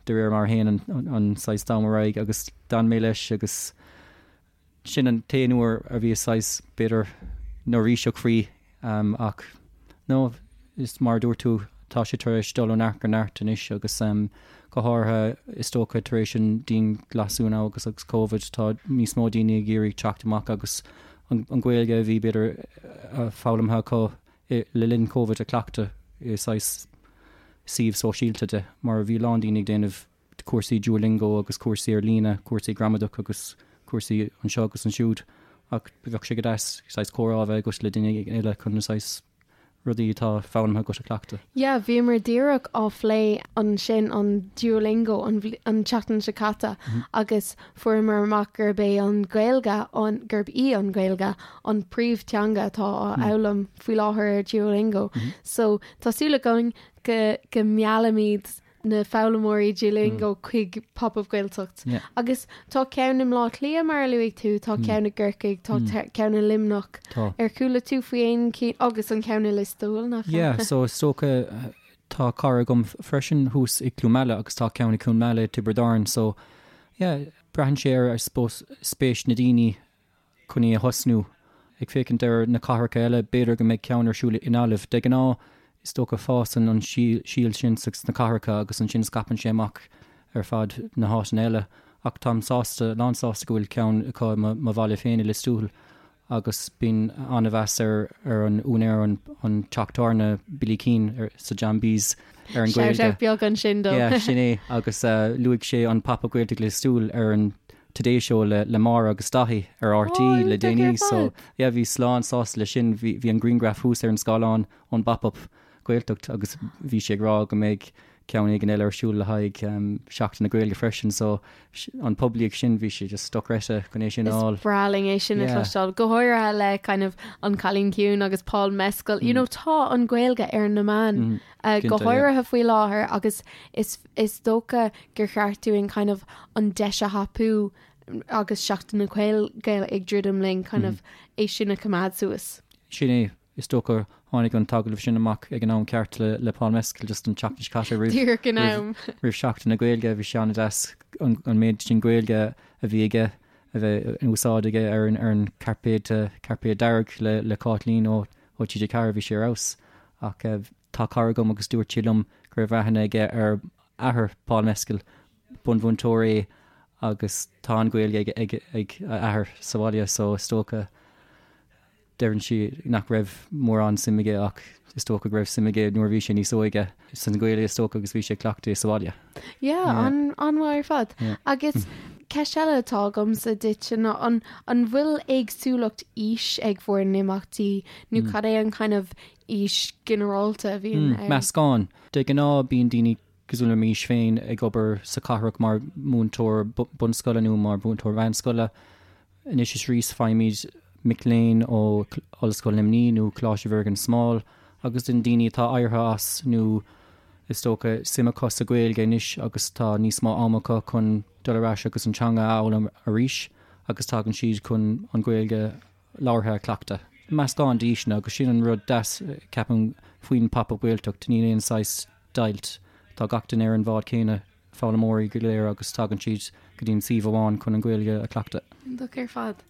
de réir mar a théann an saghas t-am ar aghaidh agus d'fhan mé leis agus Sin an t-aon uair a bhíos saghas, b'fhéidir, neirbhíseach faoi ach no, is mar a dúirt tú, tá sé tar éis dul ó neart go neart anois agus go háirithe is dócha tar éis an dianghlasáil now agus agus Covid, tá níos mó daoine ag iarraidh teacht amach agus an Ghaeilge a bhí b'fhéidir foghlamtha acu le linn Covid a chleachtadh i saghas suíomh sóisialta de mar bhí a lán daoine ag déanamh cúrsaí Duolingo agus cúrsaí ar líne, cúrsaí gramadach agus cúrsaí anseo agus ansiúd ach bheadh sé go deas saghas comhrá a bheith agat le duine eile chun na saghas rudaí atá foghlamtha agat a chleachtadh. Yeah, bhíomar díreach á phlé ansin an Duolingo an an tseachtain seo caite agus fuaireamar amach gurb é an Ghaeilge an gurb í an Ghaeilge an príomhteanga atá á fhoghlaim faoi láthair ar Duolingo. So tá súil againn go go meallaimid na foghlaimeoirí Duolingo chuig Pop Up Gaeltacht. Yeah. Agus tá ceann i mBleá Cliath mar a luaigh tú, tá ceann i gCorcaigh, tá ceann i Luimneach. Tá. Ar chuala tú faoi aon cinn agus an ceann i Lios Tuathail nach ea? Yeah, so is dócha tá cara agam freisin thuas i Cluain Meala agus tá ceann i Cluain Meala i Tiobraid Árann so yeah, braitheann sé ar I suppose spéis na daoine chun í a thosnú. Ag féachaint ar na cathracha eile, b'fhéidir go mbeidh ceann ar siúl i nGaillimh. De ghnáth, is dócha, fásann an síol sin sna cathracha agus ansin scaipeann sé amach ar fad na háiteanna eile. Ach táim sásta, lán sásta go bhfuil ceann acu i mo bhaile féin i Lios Tuathail agus bíonn an-mheas ar ar an úinéir an an teach tábhairne Billy Keane sa John B's ar an Shout Ghaeilge. out beag ansin dó. Yeah, sin é agus luaigh sé an Pop Up Gaeltacht Lios Tuathail ar an Today Show le le Máire agus Daithí ar RTÉ le déanaí so yeah bhíos lán sásta leis sin. Bhí bhí an grianghraf thuas ar an scáileán ón bPop-Up Gaeltacht agus bhí sé ag rá go mbeidh ceann éigin eile ar siúl le haghaidh Seachtain na Gaeilge freisin so an poiblíocht sin bhí sé just dochreidte chun é sin a fháil. Is breá linn é sin a chloisteáil, go háirithe le kind of An Cailín Ciúin agus Paul Mescal. You know tá an Ghaeilge ar na meáin go háirithe faoi láthair agus is is dócha gur cheart dúinn kind of an deis a thapú. agus Seachtain na Gaeilge ag druidim linn kind of é sin a choimeád suas. Sin é, is dócha tháinig an t-agallamh sin amach ag an am ceart le le Paul Mescal just an tseachtain seo caite roimh Díreach in am. roimh Seachtain na Gaeilge bhí sé an-deas an an méid sin Gaeilge a bhí aige a bheith in úsáid aige ar an ar an cairpéad cairpéad dearg le le Cáitlín ó ó TG4 bhí sé ar fheabhas ach tá cara agam agus dúirt sé liom go raibh aithne aige ar athair Paul Mescal, bunmhúinteoir é agus tá an Ghaeilge ag ag ag a athair sa bhaile so is dócha deireann sí nach raibh mórán suim aige ach is dócha go raibh suim aige nuair a bhí sé níos óige san Ghaeilge is dócha agus bhí sé ag cleachtadh é sa bhaile. Yeah, Yeah. an an-mhaith ar fad. Yeah. Agus ceist eile atá agamsa duit ná an an bhfuil éagsúlacht aois ag bhur n-imeachtaí nó cad é an kind of aois ginearálta a bhíonn ann? Meascán. De ghnáth bíonn daoine cosúil le m'aois féin ag obair sa chathrach mar mhúinteoir bunscoile nó mar mhúinteoir mheánscoile. Anois is arís faighimid mic léinn ó Ollscoil Luimnigh nó Coláiste Mhuire gan Smál agus den daoine atá éirithe as nó is dócha suim acu sa Ghaeilge anois agus tá níos mó ama acu chun dul ar ais agus an teanga a fhoghlaim arís agus tagann siad chun an Ghaeilge labhartha a chleachtadh. Meascán d'aoiseanna agus sin an rud deas, ceapaim, faoin Pop Up Gaeltacht, níl aon saghas deighilt. Tá gach duine ar an bhád céanna, foghlaimeoirí go léir agus tagann siad go dtí an suíomh amháin chun an Ghaeilge a chleachtadh. Iontach ar fad.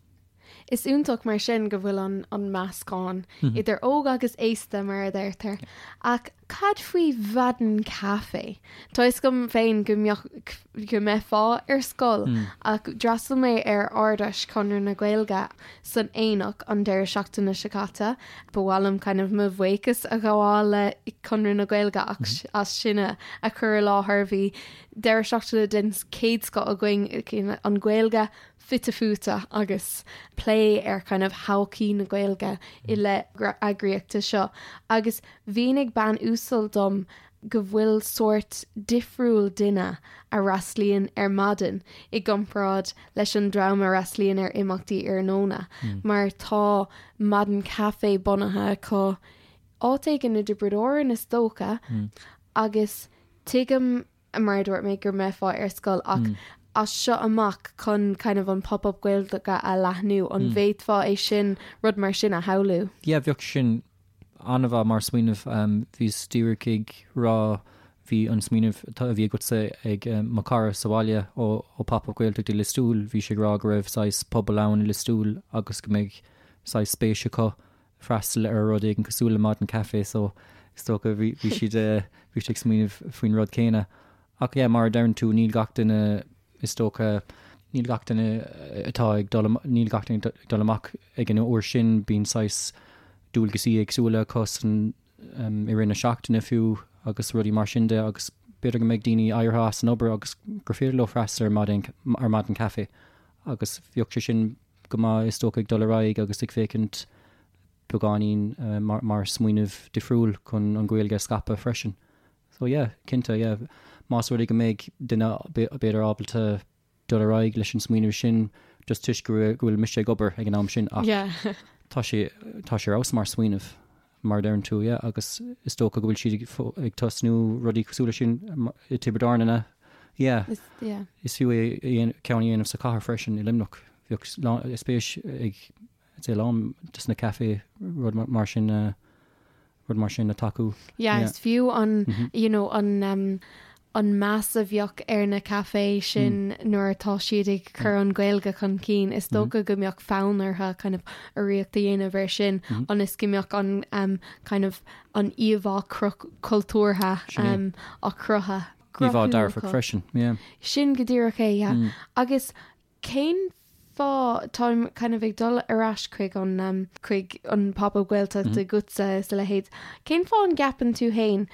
Is iontach mar sin go bhfuil an an meascán idir óg agus aosta mar a deirtear. Ach cad faoi Mhaidin Caife? Tá fhios agam féin go mbeadh go mbeifeá ar scoil ach d'fhreastail mé ar Ard-Fheis Chonradh na Gaeilge san Aonach an deireadh seachtaine seo caite. Ba mhaith liom kind of mo bhuíochas a ghabháil le Conradh na Gaeilge ach as sin a chur i láthair. Bhí deireadh seachtaine den chéad scoth againn, an Ghaeilge fite fuaite agus plé ar kind of thodhchaí na Gaeilge i leith eagraíochta seo agus mhínigh bean uasal dom go bhfuil sórt difriúil duine a fhreastlaíonn ar maidin i gcomparáid leis an dream a fhreastlaíonn ar imeachtaí iarnóna mar tá maidin caife bunaithe acu áit éigin i dTiobraid Árann is dócha agus tuigim mar a dúirt mé go mbeifeá ar scoil ach as seo amach chun kind of an pop-up Gaeilge a leathnú an bhféadfá é sin rud mar sin a shamhlú? Yeah bheadh sin an-mhaith mar smaoineamh. Bhíos díreach ag rá, bhí an smaoineamh a bhí agatsa ag mo chara sa bhaile ó Pop Up Gaeltacht i Lios Tuathail, bhí sé ag rá go raibh saghas pobal ann i Lios Tuathail agus go mbeidh saghas spéis acu freastal ar rud éigin cosúil le Maidin Caife so is dócha bhí siad bhí siad ag smaoineamh faoin rud céanna. Ach yeah, mar a deireann tú, níl gach duine Is dócha, níl gach duine atá ag dul, níl gach duine ag dul amach ag an uair sin, bíonn saghas dualgaisí éagsúla acu san, i rith na seachtaine fiú agus rudaí mar sin de agus b'fhéidir go mbeidh daoine éirithe as an obair agus gur féidir leo freastal ar maidin, ar maidin caife agus bheadh sé sin go maith is dócha ag dul ar aghaidh agus ag féachaint beagáinín mar, mar smaoineamh difriúil chun an Ghaeilge a scaipeadh freisin. So yeah, cinnte, yeah. Más rud é go mbeidh duine b'fhéidir ábalta dul ar aghaidh leis an smaoineamh sin just toisc go bhfuil mise ag obair ag an am sin ach Yeah. tá sé tá sé ar fheabhas mar smaoineamh mar a deireann tú, yeah, agus is dócha go bhfuil siad ag ag tosnú rudaí cosúil leis sin i Tiobraid Árann ina yeah. Is yeah. Is fiú é ceann a dhéanamh sa chathair freisin i Luimneach. Bheadh spéis ag I'd say a lán des na café rud mar sin rud mar sin a tacú. Yeah, is fiú an you know an um, an meas a bheadh ar na café sin nuair atá siad ag cur an Ghaeilge chun cinn, is dócha go mbeadh fonn orthu kind of urraíocht a dhéanamh air sin ionas go mbeadh an um, kind of an íomhá cultúrtha um, á cruthú. Íomhá dearfach freisin, yeah. Sin go díreach é, yeah. Agus Cén fáth, táim kind of ag dul ar ais chuig an um, chuig an Pop-Up Gaeltacht agatsa is a leithéid, cén fáth an gceapann tú fhéin,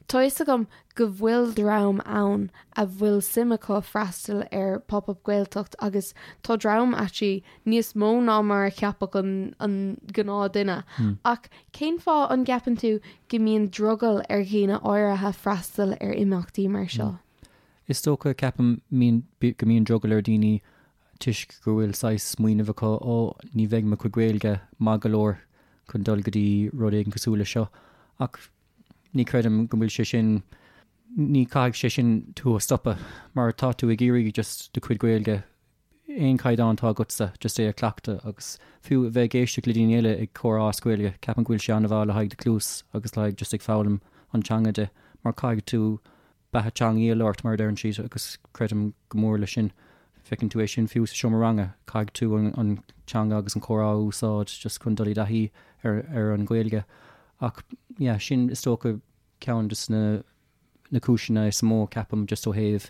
tá fhios agam go bhfuil dream ann a bhfuil suim acu freastal ar Pop-Up Gaeltacht agus tá dream actually níos mó ná mar a cheapfadh an an gnáth duine ach cén fáth an gceapann tú go mbíonn drogall ar dhaoine áirithe freastal ar imeachtaí mar seo? Is dócha, ceapaim, go mbíonn drogall ar dhaoine toisc go bhfuil saghas smaoineamh acu, ó, ní bheidh mo chuid Gaeilge maith go leor chun dul go dtí rud éigin cosúil leis seo. Ach ní chreidim go bhfuil sé sin, ní caithfidh sé sin tú a stopadh mar tá tú ag iarraidh just do chuid Gaeilge. aon chaighdeán atá agatsa, just é a chleachtadh agus fiú a bheith ag éisteacht le daoine eile ag comhrá as Gaeilge, ceapaim go bhfuil sé an-mhaith le haghaidh do chluas agus le haghaidh just ag foghlaim an teanga de mar caithfidh tú beatha teangaí a labhairt mar a deireann siad agus creidim go mór leis sin. Feiceann tú é sin fiú sa seomra ranga, caithfidh tú an teanga agus an comhrá a úsáid just chun dul i dtaithí ar ar an Ghaeilge. Ach yeah, sin is dócha ceann de na na cúiseanna is mó ceapaim just ó thaobh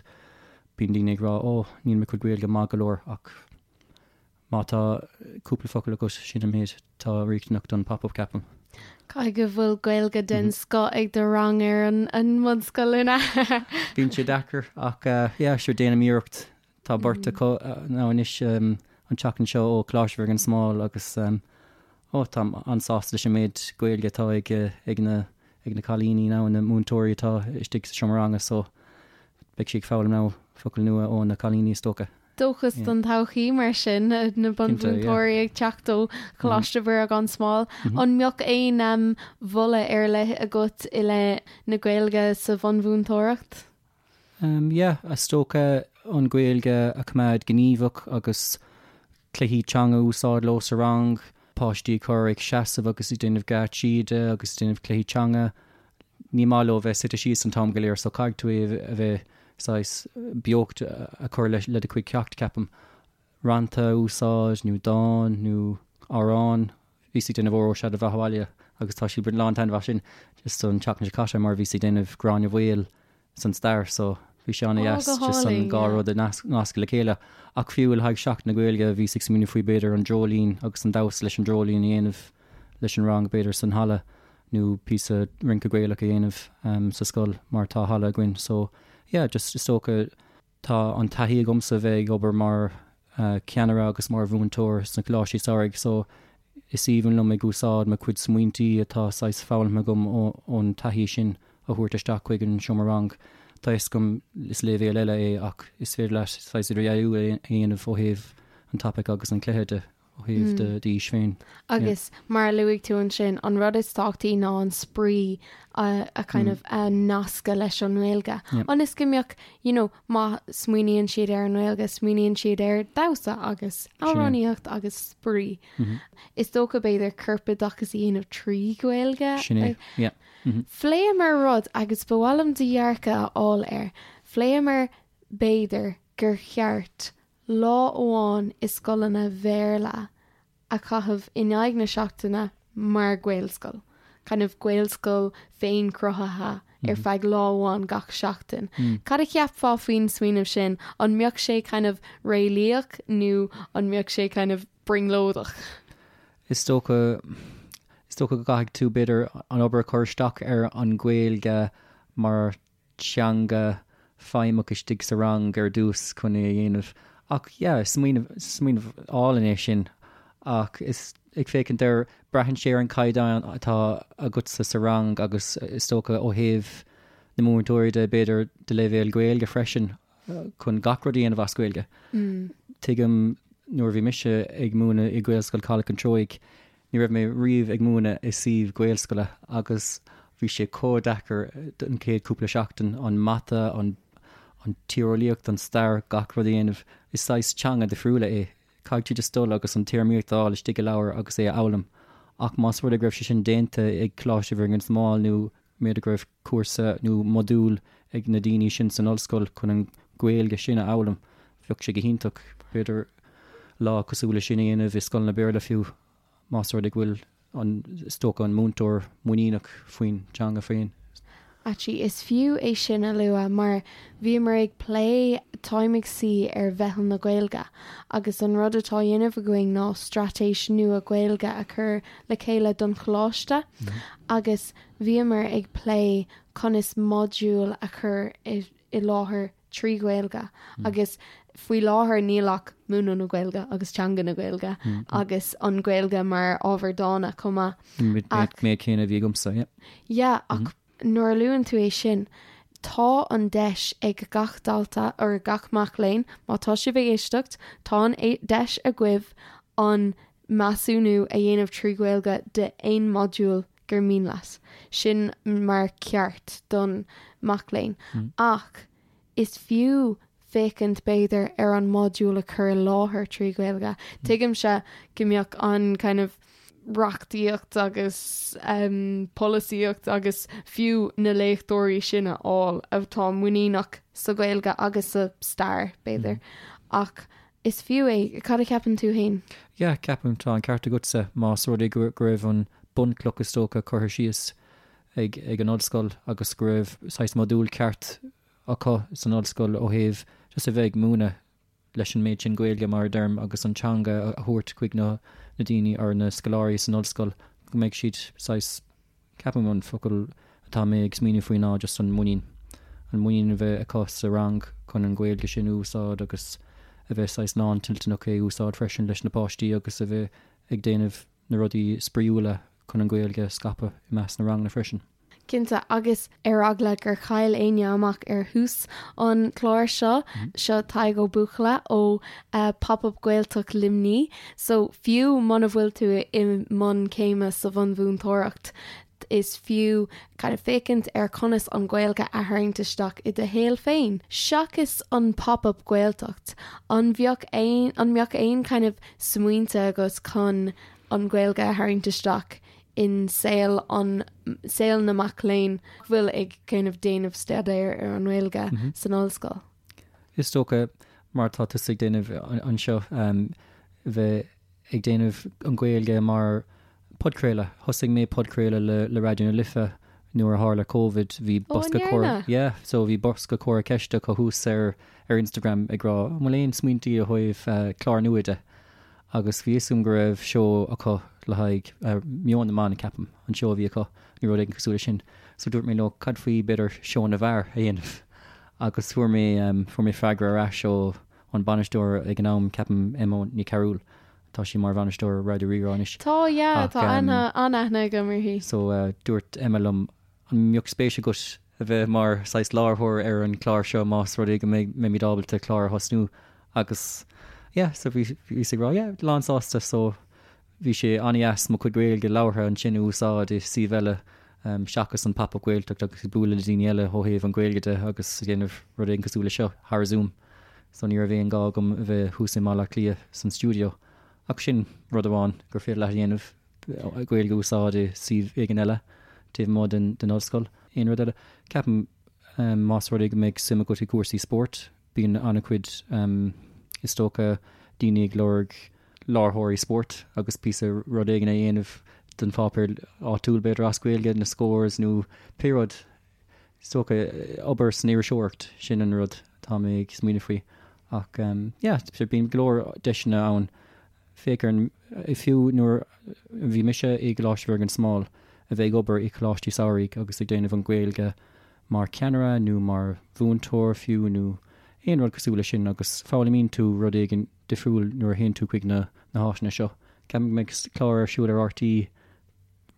bíonn daoine ag rá ó níl mo chuid Gaeilge maith go leor ach má tá cúpla focal agat sin an méid atá riachtanach don pop-up ceapaim. Caithfidh go bhfuil Gaeilge den scoth ag do rang ar an mbunscoil an ea? Bíonn sé deacair ach yeah sure déanaim iarracht. Tá beirt acu now anois an tseachtain seo ó Coláiste Mhuire gan Smál agus ó táim an-sásta leis an méid Gaeilge atá ag ag na ag na cailíní now na múinteoirí atá istigh sa seomra ranga so beidh siad ag foghlaim now focail nua ó na cailíní is dócha. Dóchas don todhchaí mar sin, na bunmhúinteoirí ag teacht ó Choláiste Mhuire gan Smál. An mbeadh aon mholadh ar leith agat i leith na Gaeilge sa bhunmhúinteoireacht? Yeah, is dócha an Ghaeilge a choimeád gníomhach agus cluichí teanga a úsáid leo sa rang, páistí a chur ag seasamh agus ag déanamh geáitsí de agus ag déanamh cluichí teanga. Ní maith leo bheith suite síos an t-am go léir so caithfidh tú é a bheith saghas beocht a chur le do chuid ceacht, ceapaim. Rannta a úsáid nó dán nó amhrán. Bhíos ag déanamh Óró Sé do Bheatha Abhaile agus tá siad ag baint lán-taitneamh as sin just an tseachtain seo caite mar bhíos ag déanamh Gráinne Mhaol san stair so bhí sé an-dheas Ó, go just an hálainn, dhá yeah. rud a nascadh le chéile. Ach fiú le haghaidh Seachtain na Gaeilge bhíos ag smaoineamh faoi b'fhéidir an dreoilín agus an damhsa leis an dreoilín a dhéanamh leis an rang b'fhéidir san halla nó píosa rince Gaelach a dhéanamh sa scoil mar tá halla againn so yeah just is dócha Tá an taithí agamsa bheith ag obair mar cheannaire agus mar mhúinteoir sna coláistí samhraidh so is aoibhinn liom ag úsáid mo chuid smaointí atá saghas foghlamtha agam ón taithí sin a thabhairt isteach chuig an seomra rang. Tá fhios agam is léibhéal eile é ach is féidir leat saghas idirdhealú a dhéanamh ó thaobh an topaic agus an cluiche de. ó thaobh d'aois féin. Agus mar a luaigh tú ansin, an rud is tábhachtaí ná an spraoi a kind of a nascadh leis an nGaeilge. Ionas go mbeadh, you know, má smaoiníonn siad ar an nGaeilge, smaoiníonn siad ar damhsa agus amhránaíocht agus spraoi. Is dócha b'fhéidir corpoideachas a dhéanamh trí Ghaeilge. Sin é, yeah. Phléamar rud agus ba mhaith liom do dhearcadh a fháil air. Phléamar b'fhéidir gur cheart lá amháin i scoileanna Bhéarla a chaitheamh in aghaidh na seachtaine mar Ghaelscoil, kind of Gaelscoil féin-chruthaithe ar feadh lá amháin gach seachtain. Cad a cheapfá faoin smaoineamh sin? An mbeadh sé kind of réalaíoch nó an mbeadh sé kind of brionglóideach? Is dócha, is dócha go gcaithfidh tú b'fhéidir an obair a chur isteach ar an Ghaeilge mar teanga feidhmeach istigh sa rang ar dtús chun é a dhéanamh. Ach yeah, smaoineamh, smaoineamh álainn é sin. Ach is ag féachaint air, braitheann sé ar an caighdeán atá agatsa sa rang agus is dócha ó thaobh na múinteoirí de, b'fhéidir do leibhéal Gaeilge freisin chun gach rud a dhéanamh as Gaeilge. Tuigim nuair a bhí mise ag múineadh i Gaelscoil Chaladh an Treoigh, Ní raibh mé riamh ag múineadh i suíomh Gaelscoile agus bhí sé chomh deacair an chéad cúpla seachtain, an mata, an an tíreolaíocht, an stair, gach rud a dhéanamh. Is saghas teanga difriúla é. Caithfidh tú just dul agus an téarmaíocht a fháil istigh i leabhar agus é a fhoghlaim. Ach más rud é go raibh sé sin déanta ag Coláiste Mhuire gan Smál nó b'fhéidir go raibh cúrsa nó modúl ag na daoine sin san ollscoil chun an Ghaeilge sin a fhoghlaim, bheadh sé go hiontach, b'fhéidir lá cosúil le sin a dhéanamh i scoileanna Béarla fiú, más rud é go bhfuil an, is dócha, an múinteoir muiníneach faoin teanga féin. Actually, is fiú é sin a lua mar bhíomar ag plé, táim ag suí ar Mheitheal na Gaeilge agus an rud atá á dhéanamh againn ná straitéis nua Gaeilge a chur le chéile don choláiste agus bhíomar ag plé conas modúil a chur i láthair trí Ghaeilge agus faoi láthair níl ach múineadh na Gaeilge agus teanga na Gaeilge agus an Ghaeilge mar ábhar dána chomh maith. Ach Méid céanna a bhí agamsa, yeah. Yeah, ach nuair a luann tú é sin, tá an deis ag gach dalta or gach mac léinn, má tá sibh ag éisteacht, tá an deis agaibh an measúnú a dhéanamh trí Ghaeilge de aon modúl gur mian leat. Sin mar ceart don mac léinn. Ach is fiú. féachaint b'fhéidir ar an modúl a chur i láthair trí Ghaeilge. Tuigimse go mbeadh an kind of reachtaíocht agus polasaíocht agus fiú na léachtóirí sin a fháil atá muiníneach sa Ghaeilge agus sa stair, b'fhéidir. Ach is fiú é. Cad a cheapann tú féin? Yeah, ceapaim, tá an ceart agatsa, más rud é go raibh an bunchloch is dócha curtha síos ag ag an ollscoil agus go raibh saghas modúl ceart acu san ollscoil ó thaobh just a bheith ag múineadh leis an méid sin Gaeilge, mar a deirim, agus an teanga a thabhairt chuig na daoine or na scoláirí san ollscoil, go mbeidh siad saghas, ceapaim an focal atá mé ag smaoineamh faoi ná just an muinín, an muinín a bheith acu sa rang chun an Ghaeilge sin a úsáid agus a bheith saghas lántoilteanach é a úsáid freisin leis na páistí agus a bheith ag déanamh na rudaí spraíúla chun an Ghaeilge a scaipeadh i measc na ranganna freisin. Cinnte, agus ar eagla gur chaill éinne amach ar thús an chláir seo, seo Tadhg Ó Buachalla ó Pop Up Gaeltacht Luimní. So fiú muna bhfuil tú i mbun céime sa bhunmhúinteoireacht, is fiú kind of féachaint ar conas an Ghaeilge a tharraingt isteach i do shaol féin. Seachas an Pop Up Gaeltacht, an bheadh aon, an mbeadh aon kind of smaointe agat chun an Ghaeilge a tharraingt isteach in saol an, saol na mac léinn a bhfuil ag kind of déanamh staidéir ar an nGaeilge san ollscoil. Is dócha, mar atá tusa ag déanamh anseo, bheith ag déanamh an Ghaeilge mar podchraoladh. Thosaigh mé podchraoladh le le Raidió na Life nuair a tharla Covid, bhí bosca comhrá, yeah, so bhí bosca comhrá ceiste acu thuas ar ar Instagram ag rá an bhfuil aon smaointí ó thaobh clár nua de? Agus bhí fhios agam go raibh seó acu le haghaidh Meon na mBan, ceapaim, an seó a bhí acu, nó rud éigin cosúil leis sin. So dúirt mé leo, cad faoi, b'fhéidir, seó na bhfear a dhéanamh? Agus fuair mé, fuair mé freagra ar ais ó an bainisteoir ag an am, ceapaim, Emma Ní Chearúil, tá sí mar bhainisteoir Raidió Rí-Rá anois. Tá, yeah, tá aithne, an-aithne agam uirthi. So dúirt Emma liom, an mbeadh spéis agat a bheith mar saghas láithreoir ar an chlár seo más rud é go mbeimid ábalta clár a thosnú agus yeah so bhí bhíos ag rá yeah lán sásta so bhí sé an-dheas mo chuid Gaeilge labhartha ansin a úsáid i suíomh eile seachas an Pop Up Gaeltacht agus ag bualadh le daoine eile ó thaobh an Ghaeilge de agus ag déanamh rud éigin cosúil le seo thar Zoom so ní raibh aon gá agam a bheith thuas i mBaile Átha Cliath san stiúideo ach sin rud amháin gur féidir leat a dhéanamh. Gaeilge a úsáid i suíomh éigin eile taobh amuigh den ollscoil. Aon rud eile? Ceapaim más rud é go mbeidh suim agat i gcúrsaí spóirt, bíonn an-chuid, is dócha, daoine ag lorg láithreoirí spóirt agus píosa rud éigin a dhéanamh don pháipéar áitiúil, b'fhéidir as Gaeilge, na scores nó pé rud. Is dócha, obair san iriseoireacht, sin an rud atá mé ag smaoineamh faoi. Ach yeah, bíonn go leor deiseanna ann. Féach ar an, fiú nuair a bhí mise i gColáiste Mhuire gan Smál, a bheith ag obair i gcoláistí samhraidh agus ag déanamh an Ghaeilge mar cheannaire nó mar mhúinteoir fiú nó aon rud cosúil leis sin agus foghlaimíonn tú rud éigin difriúil nuair a théann tú chuig na háiteanna seo. Ceapaim go mbeidh clár ar siúl ar RTÉ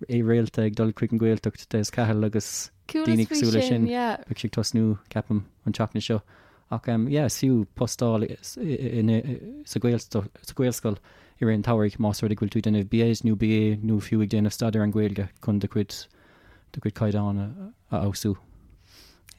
réalta ag dul chuig an Ghaeltacht, Des Cahill agus daoine cosúil leis sin. Beidh sé ag tosnú, ceapaim, an tseachtain seo. Ach yeah, is fiú post a fháil sa Ghaelscoil i rith an tsamhraidh más rud é go bhfuil tú ag déanamh BEd nó BA nó fiú ag déanamh staidéar ar an Ghaeilge chun do chuid do chuid caighdeán a fheabhsú.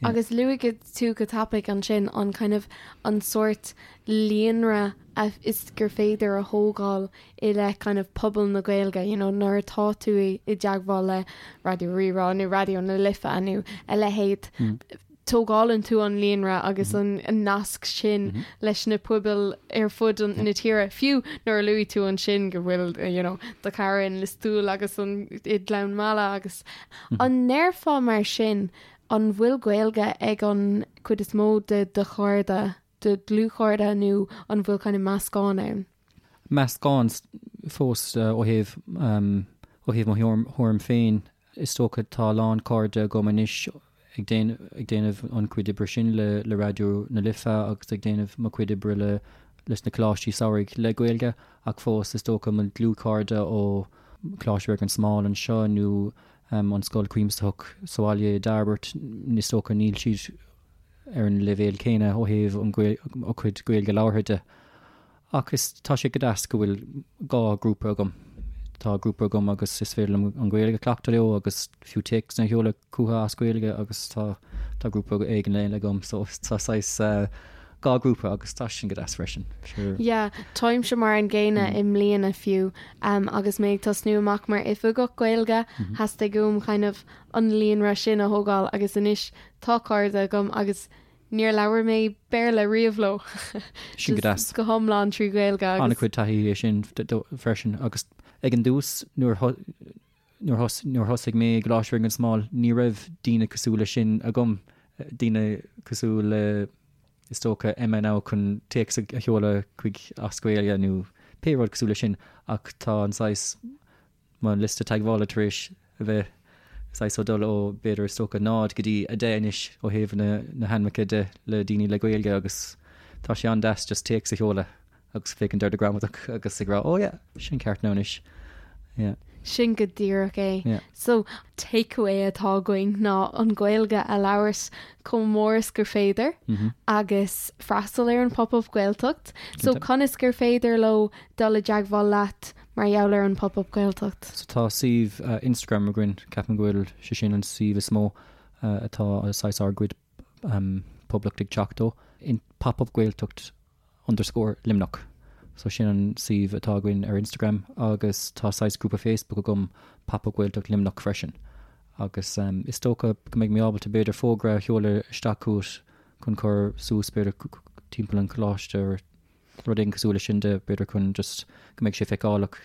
Agus luaigh tú go tapaidh ansin an kind of an sórt líonra a is gur féidir a thógáil i leith kind of pobal na Gaeilge, you know, nuair atá tú i dteagmháil le Raidió Rí-Rá nó Raidió na Life nó a leithéid, tógálann tú an líonra agus an nasc sin leis na pobail ar fud na tíre. Fiú nuair a luaigh tú ansin go bhfuil, you know, do chara in Lios Tuathail agus an i nGleann Meala agus an ndéarfá mar sin an bhfuil Gaeilge ag an chuid is mó de do chairde, do dhlúthchairde nó an bhfuil kind of meascán ann? Meascán fós ó thaobh ó thaobh mo thuairim féin. Is dócha tá a lán cairde agam anois ag déanamh an chuid oibre sin le le Raidió na Life agus ag déanamh mo chuid oibre le leis na coláistí samhraidh le Gaeilge ach fós is dócha mo dhlúthchairde ó Choláiste Mhuire gan Smál anseo nó an Scoil Chuimsitheach sa bhaile i dTairbeart is dócha níl siad ar an leibhéal céanna ó thaobh an a gcuid Gaeilge labhartha de. Ach is, tá sé go deas go bhfuil 2 grúpa agam. Tá grúpa agam agus is féidir liom an Ghaeilge a chleachtadh leo agus fiú téacsanna a sheoladh chucu as Gaeilge agus tá, tá grúpa éigin eile agam so tá saghas. 2 grúpa agus tá sin go deas freisin. Sure. Yeah, táimse mar an gcéanna i mbliana fiú agus mé ag tosnú amach mar oifigeach Gaeilge, theastaigh uaim kind of an líonra sin a thógáil agus anois tá cairde agam agus níor labhair mé Béarla riamh leo. Sin go deas. Go hiomlán trí Ghaeilge agus. An-chuid taithí é sin freisin agus ag an dtús nuair Nuair thosaigh mé i gColáiste Bhréanainn gan Smál ní raibh daoine cosúil leis sin agam, daoine cosúil le is dócha Emma now chun téacs a sheoladh chuig as Gaeilge nó pé rud cosúil leis sin ach tá an saghas, mo liosta teagmhála tar éis a bheith saghas ag dul ó b'fhéidir is dócha 0 go dtí 10 anois ó thaobh na na hainmneacha de le daoine le Gaeilge agus tá sé an-deas just téacs a sheoladh. agus féachaint ar do ghramadach agus ag rá oh yeah, sin ceart now anois. Yeah. Sin go díreach é. Yeah. So, takeaway atá againn ná an Ghaeilge a labhairt chomh mór is gur féidir mm -hmm. agus freastal ar an Pop-Up Gaeltacht. So conas gur féidir leo dul i dteagmháil leat mar gheall ar an Pop-Up Gaeltacht? So tá suíomh uh, Instagram againn, ceapaim go bhfuil sé sin an suíomh is mó uh, atá saghas ár gcuid um, poiblíocht ag teacht ó. In Pop-Up Gaeltacht underscore Luimneach. So sin an suíomh atá againn ar Instagram agus tá saghas grúpa Facebook agam Pop Up Gaeltacht Luimneach freisin. Agus is dócha go mbeidh mé ábalta b'fhéidir fógra a sheoladh isteach chugat chun cur suas b'fhéidir timpeall an choláiste or rud éigin cosúil leis sin de b'fhéidir chun just go mbeidh sé feiceálach.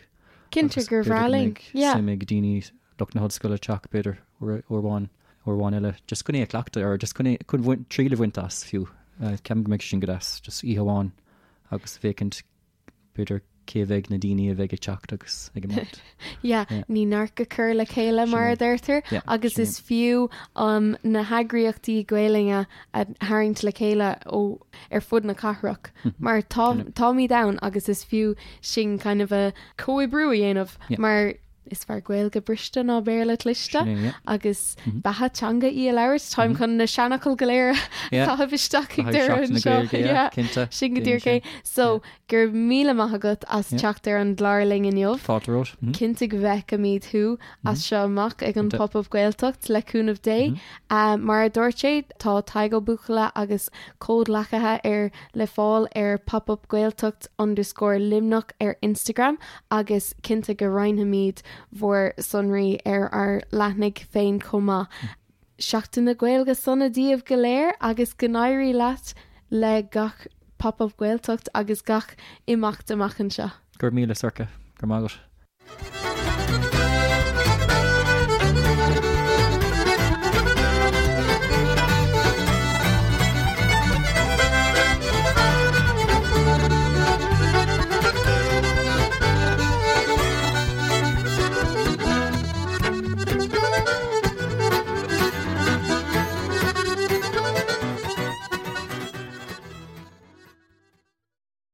Cinnte gur bhreá linn. Yeah. Suim ag daoine lucht na hollscoile teacht b'fhéidir uair amháin, uair amháin eile, just chun é a chleachtadh or just chun é, chun bhaint, triail a bhaint as fiú. Ceapaim go mbeidh sé sin go deas, just oíche amháin agus féachaint b'fhéidir cé bheidh na daoine a bheidh ag teacht agus ag imeacht. Yeah, ní neart go cur le chéile mar a deirtear agus is fiú um, na heagraíochtaí Gaelainne a tharraingt le chéile ó ar fud na cathrach mar tá táimid ann agus is fiú sin kind of a comhoibriú a dhéanamh mar Is fearr Gaeilge briste ná Béarla cliste agus beatha teanga í a labhairt. Táim chun na seanfhocail go léir a chaitheamh isteach ag deireadh anseo. Sin go díreach é. So, go raibh míle maith agat as teacht ar an gclár linn inniu. Fáilte romhat. Cinnte go bhfeicfimid thú as seo amach ag an Pop-Up Gaeltacht le cúnamh Dé. Mar a dúirt sé, tá Tadhg Ó Buachalla agus comhghleacaithe air le fáil ar popupgaeltacht underscore Luimneach ar Instagram agus cinnte go roinnfimid bhur sonraí ar ár leathanaigh féin chomh maith. Seachtain na Gaeilge sona daoibh go léir agus go n-éirí leat le gach Pop Up Gaeltacht agus gach imeacht amach anseo. Go raibh míle, Sorcha. Go raibh maith agat.